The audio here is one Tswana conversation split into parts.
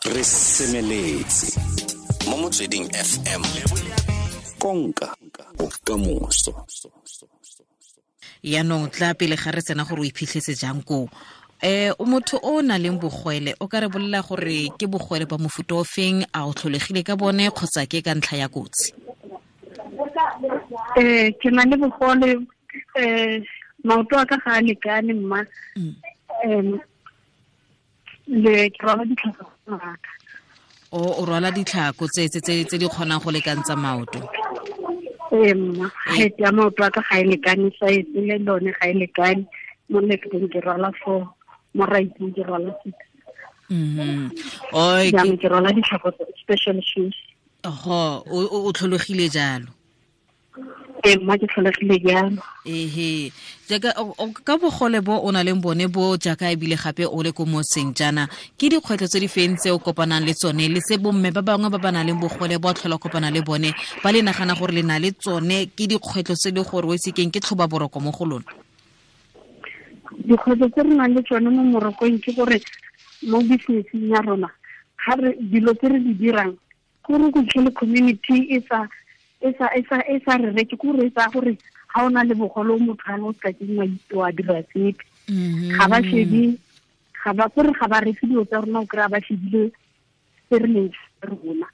Re semeletse mo Motsweding FM, konka bokamoso. Yaanong tla pele ga re tsena gore o iphitlhetse jang koo, o motho o na leng bogwele, o ka re bolela gore ke bogwele ba mofuta o feng, a o tlholegile ka bone kgotsa ke ka ntlha ya kotsi? Ke na le bogole, maoto a ka ga a lekane mma. Le ke rwala ditlhako ngaka. O rwala ditlhako tse di kgonang go lekantsa maoto? Ee mma, height ya maoto a ka ga e lekane, size le lone ga e lekane. Mo lefteng ke rwala 4, mo righteng ke rwala 6. Jaanong ke rwala ditlhako tse special shoes. Oho, o tlholegile jalo? Ee mma, ke tlholegile jalo. Ehe, jaaka ka bogole bo o na leng bone bo, jaaka ebile gape o le ko motseng jaana, ke dikgwetlho tse di feng tse o kopanang le tsone, le se bomme ba bangwe ba ba nang le bogole bo tlhola kopana le bone ba le nagana gore le na le tsone, ke dikgwetlho tse le gore o itse keng ke tlhoba boroko mo go lona? Dikgwetlho tse re nang le tsone mo morokong ke gore mo businesseng ya rona, ga re dilo tse re di dirang, gore go tlhole community e sa re reke, ke gore e tsaya gore ga o na le bogole o motho a o ka keng wa dira sepe. Ga ba shebe, ga ba gore ga ba reke dilo tsa rona, o kry-a ba shebile se re leng rona.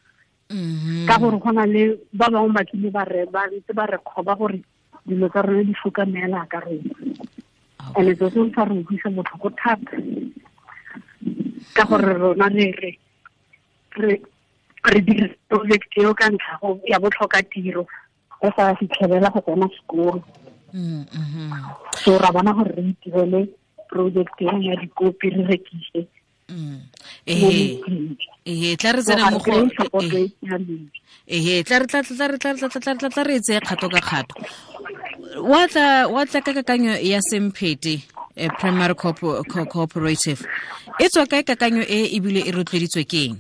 Ka gore go na le ba bangwe ba tlile ba re ba ntse ba re kgoba gore dilo tsa rona di foka meela ka rona. And so se sa re utlwisa botlhoko thata, ka gore rona re dira project eo ka ntlha ya botlhoka tiro, re sa fitlhelela go tsena sekolo. So ra bona gore re itirele project eo ya dikopi re rekise. Tla re tsena mo go tla re tseye kgato ka kgato. Wa tla ka kakanyo ya Semphete Primary Cooperative, e tswa kae kakanyo e ebile e rotloeditswe ke eng?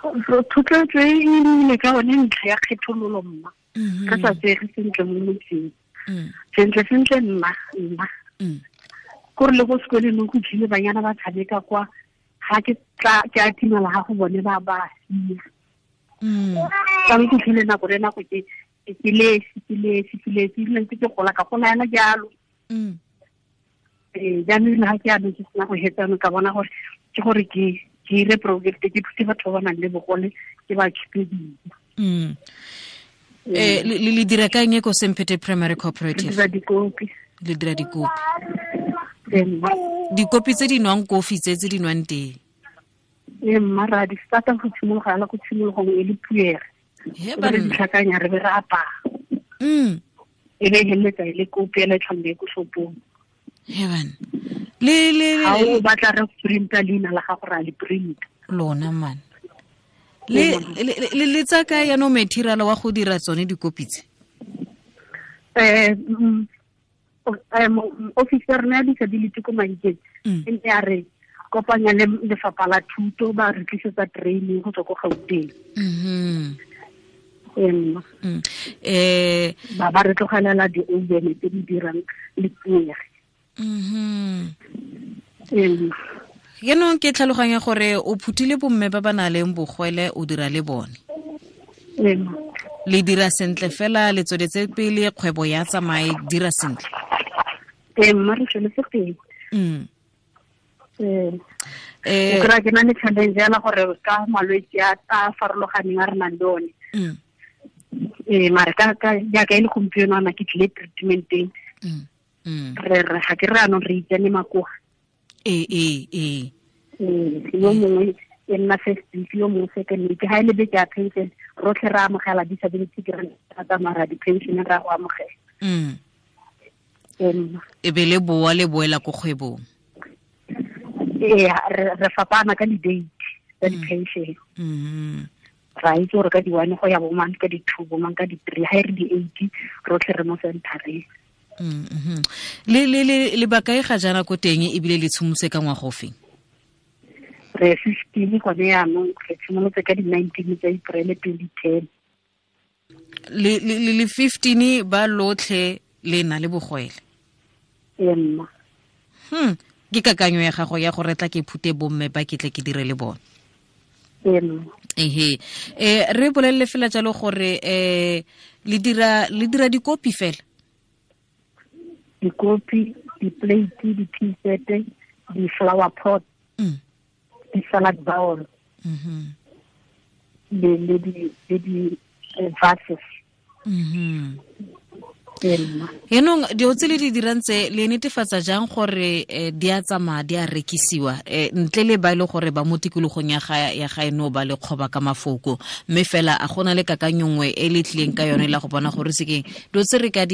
Thotloetso e nnile ka one ntlha ya kgethololo mma. Re sa tsege sentle mo motseng. Sentle sentle nna. Kore le go sekoleng go tlile banyana ba tshameka kwa, ga ke tla ke a timela ga go bone ba ba sia. Ka go tlile nako le nako ke le ntse ke gola ka gola yana jalo. Jaanong le ga ke ano ke sena go hetsa ka bona gore ke gore ke dire project ke thuse batho ba ba nang le bogole, ke ba khipe dijo. Le dira ka eng ko Semphete Primary Cooperative? Le dira dikopi. Le dira dikopi. Dikopi tse di nwang kofi, tse di nwang tee. Ee mma, ra di starta go tshimologa yana ko tshimologong e le puere. Re di tlhakanya re be re apaya. E be heletsa e le kopi ela e tlhombe ko shopong. Heaven. Le ha o batla re printa leina la gago ra le printa. Lona man. Le tsa ka ya no material wa go dira tsone dikopi tse? Officer na disability ko Mahikeng e ne ya re kopanya le lefapha la thuto, ba re tlisetsa training go tswa ko Gauteng. Ba re tlogelela di-oven tse di dirang le puere. Yaanong ke tlhaloganya gore o phuthile bomme ba ba nang le bogwele, o dira le bone. Le dira sentle fela, le tsweletse pele kgwebo ya tsamaye dira sentle. Ee mma, re tsweletse pele. O kry-a ke na le challenge yana gore ka malwetse a farologaneng a re nang le one. Mare ka jaaka e le gompieno ana ke tlile treatmenteng. Re ga ke re anong re itsane makoa. Ee. Yo mongwe e nna first week, yo mongwe second week. Ha e le beke ya pension, rotlhe re amogela disability grant, ra tsamaya ra di-pension ra go amogela. E be le boa le boela ko kgwebong. Ee, re fapana ka di-date tsa di-pension. Ra itse gore ka di-1 go ya bomang, ka di-2 bomang, ka di-3. Ha e re di-8 rotlhe re mo centereng. Le bakae ga jaana ko teng ebile le tshimolotse ka ngwaga ofeng? Re 15 gone jaanong, re tshimolotse ka di-19 tsa April 2010. Le 15 ba lotlhe le na le bogwele? Ee mma. Ke kakanyo ya gago ya gore tla ke phute bomme ba ke tle ke dire le bone. Ehe. Re bolelle fela jalo gore le dira dikopi fela. Dikopi, di-plate, di-tea set, di-flower pot, di-salad bowl, le di vases. Yaanong dilo tse le di dirang tse le netefatsa jang gore di a tsamaya di a rekisiwa ntle le ba e le gore ba mo tikologong ya gaeno ba le kgoba ka mafoko, mme fela a gona le kakanyo nngwe e le tlileng ka yone la go bona gore sekeng dilo tse re ka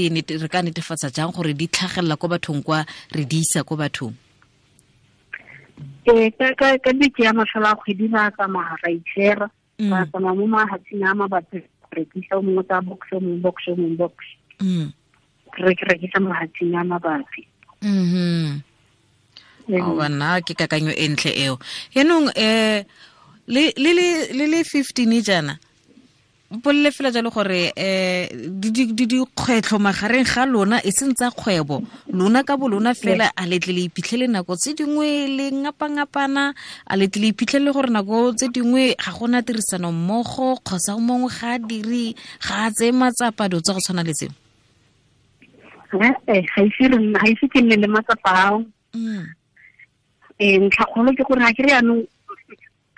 netefatsa jang gore di tlhagelela ko bathong kwa re di isa ko bathong? Ka beke ya mafelo a kgwedi ba tsamaya ra itshera, ba tsamaya mo mahatsheng a mabapi rekisa o mongwe tsa box, o mongwe box, o mongwe box. Re rekisa mahatsheng a mabapi. Bana ke kakanyo e ntle eo. Yaanong le le 15 jaana mpolele fela jalo gore dikgwetlho magareng ga lona e seng tsa kgwebo, lona ka bo lona fela a letle le iphitlhele nako tse dingwe le ngapangapana, a letle le iphitlhele gore nako tse dingwe ga gona tirisano mmogo kgotsa mongwe ga a dire, ga a tseye matsapa, dilo tsa go tshwana le tseo? Ga ise ke nne le matsapa ao. Ntlhakgolo ke gore ga ke re yaanong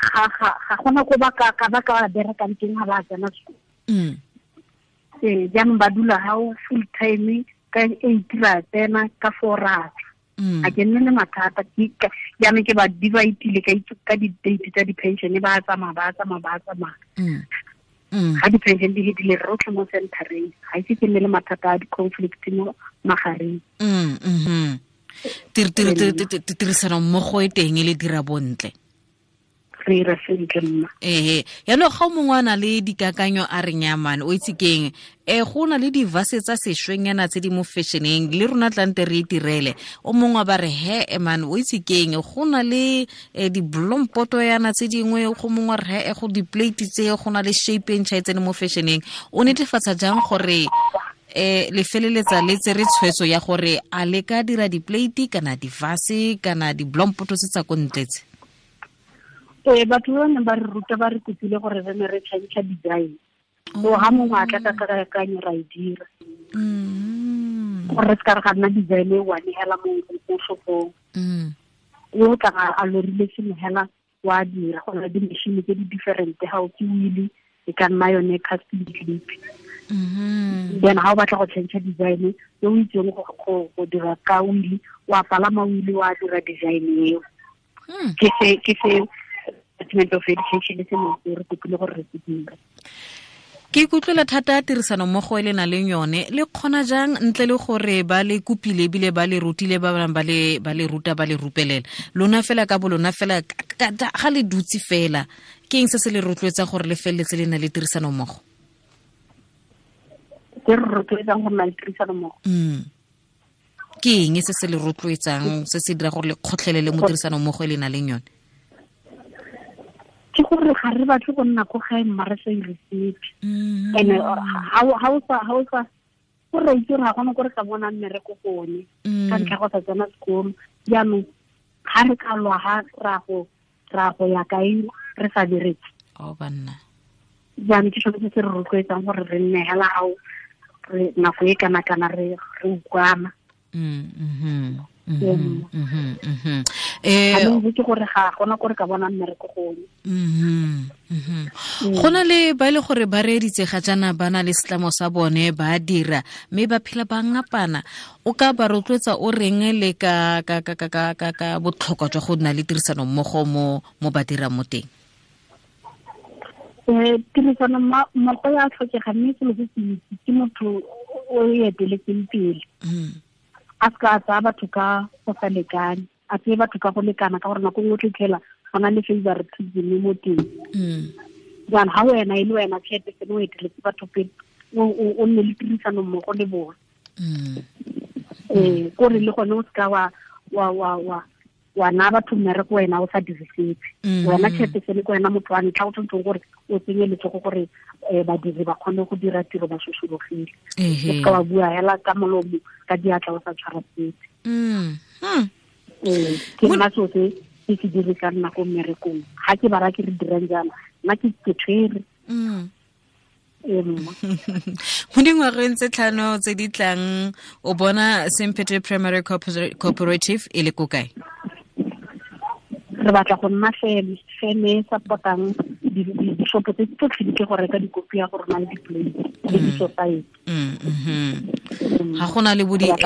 ga gona ko ba ka berekang teng ga ba tsena sekolo. Jaanong ba dula gao full time ka 8 ra tsena ka 4 ra tswa. Ga ke nne le mathata, jaanong ke ba divide-ile ka di-date tsa di-pension, ba tsamaya. Ga di-pension di fetile re rotlhe mo centereng, ga ise ke nne le mathata a di-conflict mo magareng. Tirisano mmogo e teng e le dira bontle. Re ira sentle mma. Ehe. Yaanong ga o mongwe a na le dikakanyo a re nyamane, o itse keng, go na le divase tsa sešwengnyana tse di mo fashioneng le rona tlante re itirele. O mongwe ba re he man, o itse keng, go na le diblompoto yana tse dingwe, go mongwe re he go di-plate tse go na le shape e ntšha e tsene mo fashioneng. O netefatsa jang gore le feleletsa le tsere tshwetso ya gore a le ka dira di-plate kana divase kana diblompoto tse tsa ko ntle tse? Batho ba neng ba re ruta ba re kopile gore re ne re change design. So ha mongwe a tla ka kakanyo ra e dira. Gore re se ka re ga nna design e one hela mo shopong. O tla a lorile sengwe hela wa dira, go na le di-machine tse di different, ga o ke wheel e ka nna yone casting clip. Then ha o batla go change design yo o itseng go dira ka wheel, wa palama wheel wa dira design eo. Ke se Department of Education se mo re kopile gore re se dire. Ke ikutlwela thata tirisano mmogo e le na leng yone, le kgona jang ntle le gore ba le kopile ebile ba le rutile, ba bangwe ba le ruta ba le rupelela, lona fela ka bo lona fela ga le dutse fela, ke eng se se le rotloetsang gore le feleletse le na le tirisano mmogo? Ke re rotloetsang go nna le tirisano mmogo. Ke eng se se le rotloetsang, se se dira gore le kgotlhelele mo tirisano mmogo e le na leng yone? Ke gore ga re batle go nna ko gae mma re sa ire sepe. And ha o sa go re itse gore ga gona ko re ka bonang mmereko gone ka ntlha go sa tsena sekolo. Jaanong ga re ka lwa ga ra go ya kae re sa bereke. Banna. Jaanong ke sone se se re rotloetsang gore re nne hela gao re nako e kana-kana re utlwana. Ke gore ga gona gore ka bona mmereko gone. Go na le ba e le gore ba reeditse ga jaana ba na le setlamo sa bone ba dira mme ba phela ba ngapana, o ka ba rotloetsa o reng le ka botlhokwa jwa go nna le tirisano mmogo mo ba dirang mo teng? Tirisano mmogo ya tlhokega, mme selo se se itse ke motho o e eteletseng pele. A se ka tsaya batho ka go sa lekane, a tseye batho ka go lekana, ka gore nako nngwe o tla go na le favoritism mo teng. Jaanong ga wena e le wena chairperson o eteletse batho pele, o nne le tirisano mmogo le bone. Kore le gone o seka wa wa naya batho mmereko wena o sa dire sepe. Wena chairperson ke wena motho wa ntlha o tshwanetseng gore o tsenye letsogo gore badiri ba kgone go dira tiro ba sosologile. O seka wa bua hela ka molomo ka diatla o sa tshwara sepe. Ke nna so se ke se dirisang nna ko mmerekong. Ga ke bara ke re dirang jaana, nna ke tshwere. Mo dingwageng tse 5 tse di tlang o bona Semphete Primary Cooperative e le ko kae? Re batla go nna feme e support-ang dishopo tse tsotlhe di tle go reka dikopi ya go rona le di-plate le di-society. Ga gona le bo ga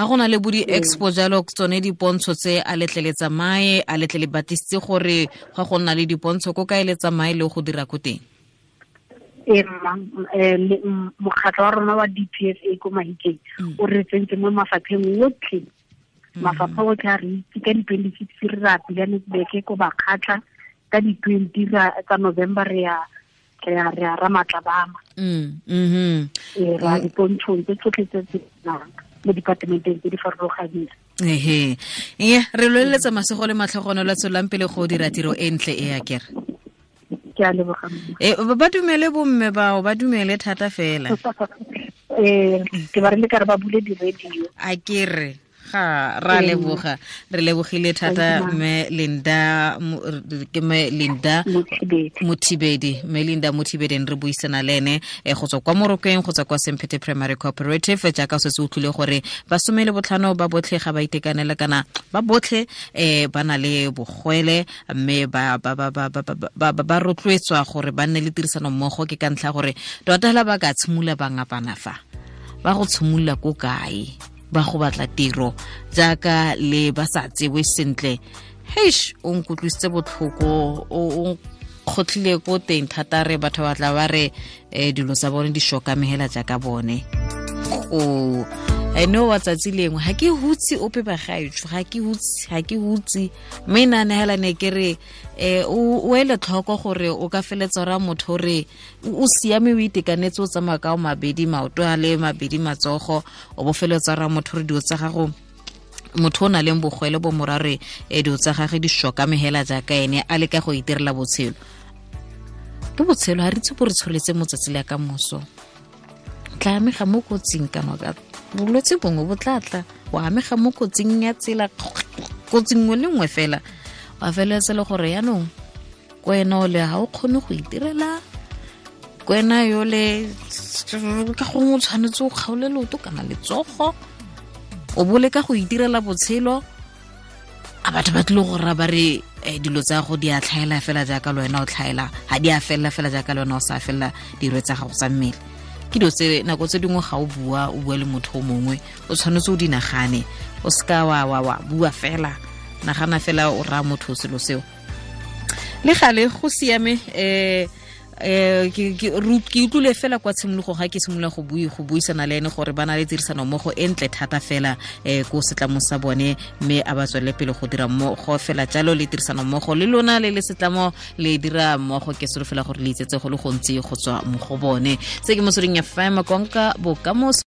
gona le bo di-expo jalo tsone dipontsho tse a letle le tsamaye, a letle le batlisitse gore ga go nna le dipontsho ko kae le tsamaye le go dira ko teng? Mokgatlho wa rona wa DPSA ko Mahikeng o re tsentse mo mafapheng otlhe. Mafapha otlhe a re itse ka di-26 re ra Pilanesberg ko Bakgatla, ka di-20 tsa November re ya Ramatlabama. Ra dipontshong tse tsotlhe tse tse nang mo departmenteng tse di farologaneng. Ehe. Re loleletsa masego le matlhogonolo a tswelang pele go dira tiro e ntle e ya kere. Ke a leboga. Ba dumele bomme bao, ba dumele thata fela. Ke ba re le ka re ba bule di-radio. A kere. Ga ra leboga, re lebogile thata mme Linda, ke mme Linda Mothibedi, mme Linda Mothibedi re buisana le ene go tswa kwa Morokweng, go tswa kwa Semphete Primary Cooperative. Jaaka o setse o utlwile gore ba 15 ba botlhe ga ba itekanela kana ba botlhe ba na le bogwele, mme ba ba rotloetswa gore ba nne le tirisano mmogo. Ke ka ntlha gore tota hela ba ka tshimolola ba ngapana fa ba go tshimolola ko kae, ba go batla tiro jaaka le ba sa tsewe sentle. Heish, o nkutlwisitse botlhoko, o kgotlhile ko teng thata. Re batho ba tla ba re dilo tsa bone di shokamegela jaaka bone. Go ene wa tsatsi lengwe ga ke hutse ope bagaetsho, ga ke hutse mme nna hela ne ke re o ele tlhoko gore o ka feletsa ra motho re o siame o itekanetse o tsamaya ka o mabedi maoto a le mabedi matsogo, o bo feletsa ra motho re dilo tsa gago, motho o na leng bogwele bo morare dilo tsa gage di shokamegela jaaka ene a leka go itirela botshelo. Ke botshelo ga re itse bo re tsholetse mo tsatsi le ka moso. Tla amega mo kotsing kana ka bolwetse bongwe bo tla tla, wa amega mo kotsing ya tsela, kotsi nngwe le nngwe fela, wa feleletsa le gore yaanong ko wena o le ga o kgone go itirela, ko wena yole ka gongwe o tshwanetse o kgaole leoto kana letsogo, o bo leka go itirela botshelo. A batho ba tlile go rra ba re dilo tsa go di a tlhaela fela jaaka le wena o tlhaela, ga di a felela fela jaaka le wena o sa felela dilo tsa gago tsa mmele. Ke dilo tse nako tse dingwe ga o bua, o bua le motho o mongwe, o tshwanetse o di nagane, o seka wa bua fela, nagana fela o raya motho selo seo. Le gale go siame. Ke utlwile fela kwa tshimologong ga ke simolola go buisana le ene gore ba na le tirisano mmogo e ntle thata fela ko setlamo sa bone, mme a ba tswelele pele go dira mmogo fela jalo le tirisano mmogo le lona le le setlamo le dira mmogo. Ke solofela gore le itsetse go le gontsi go tswa mo go bone. Se ke Motsweding FM, konka bokamoso.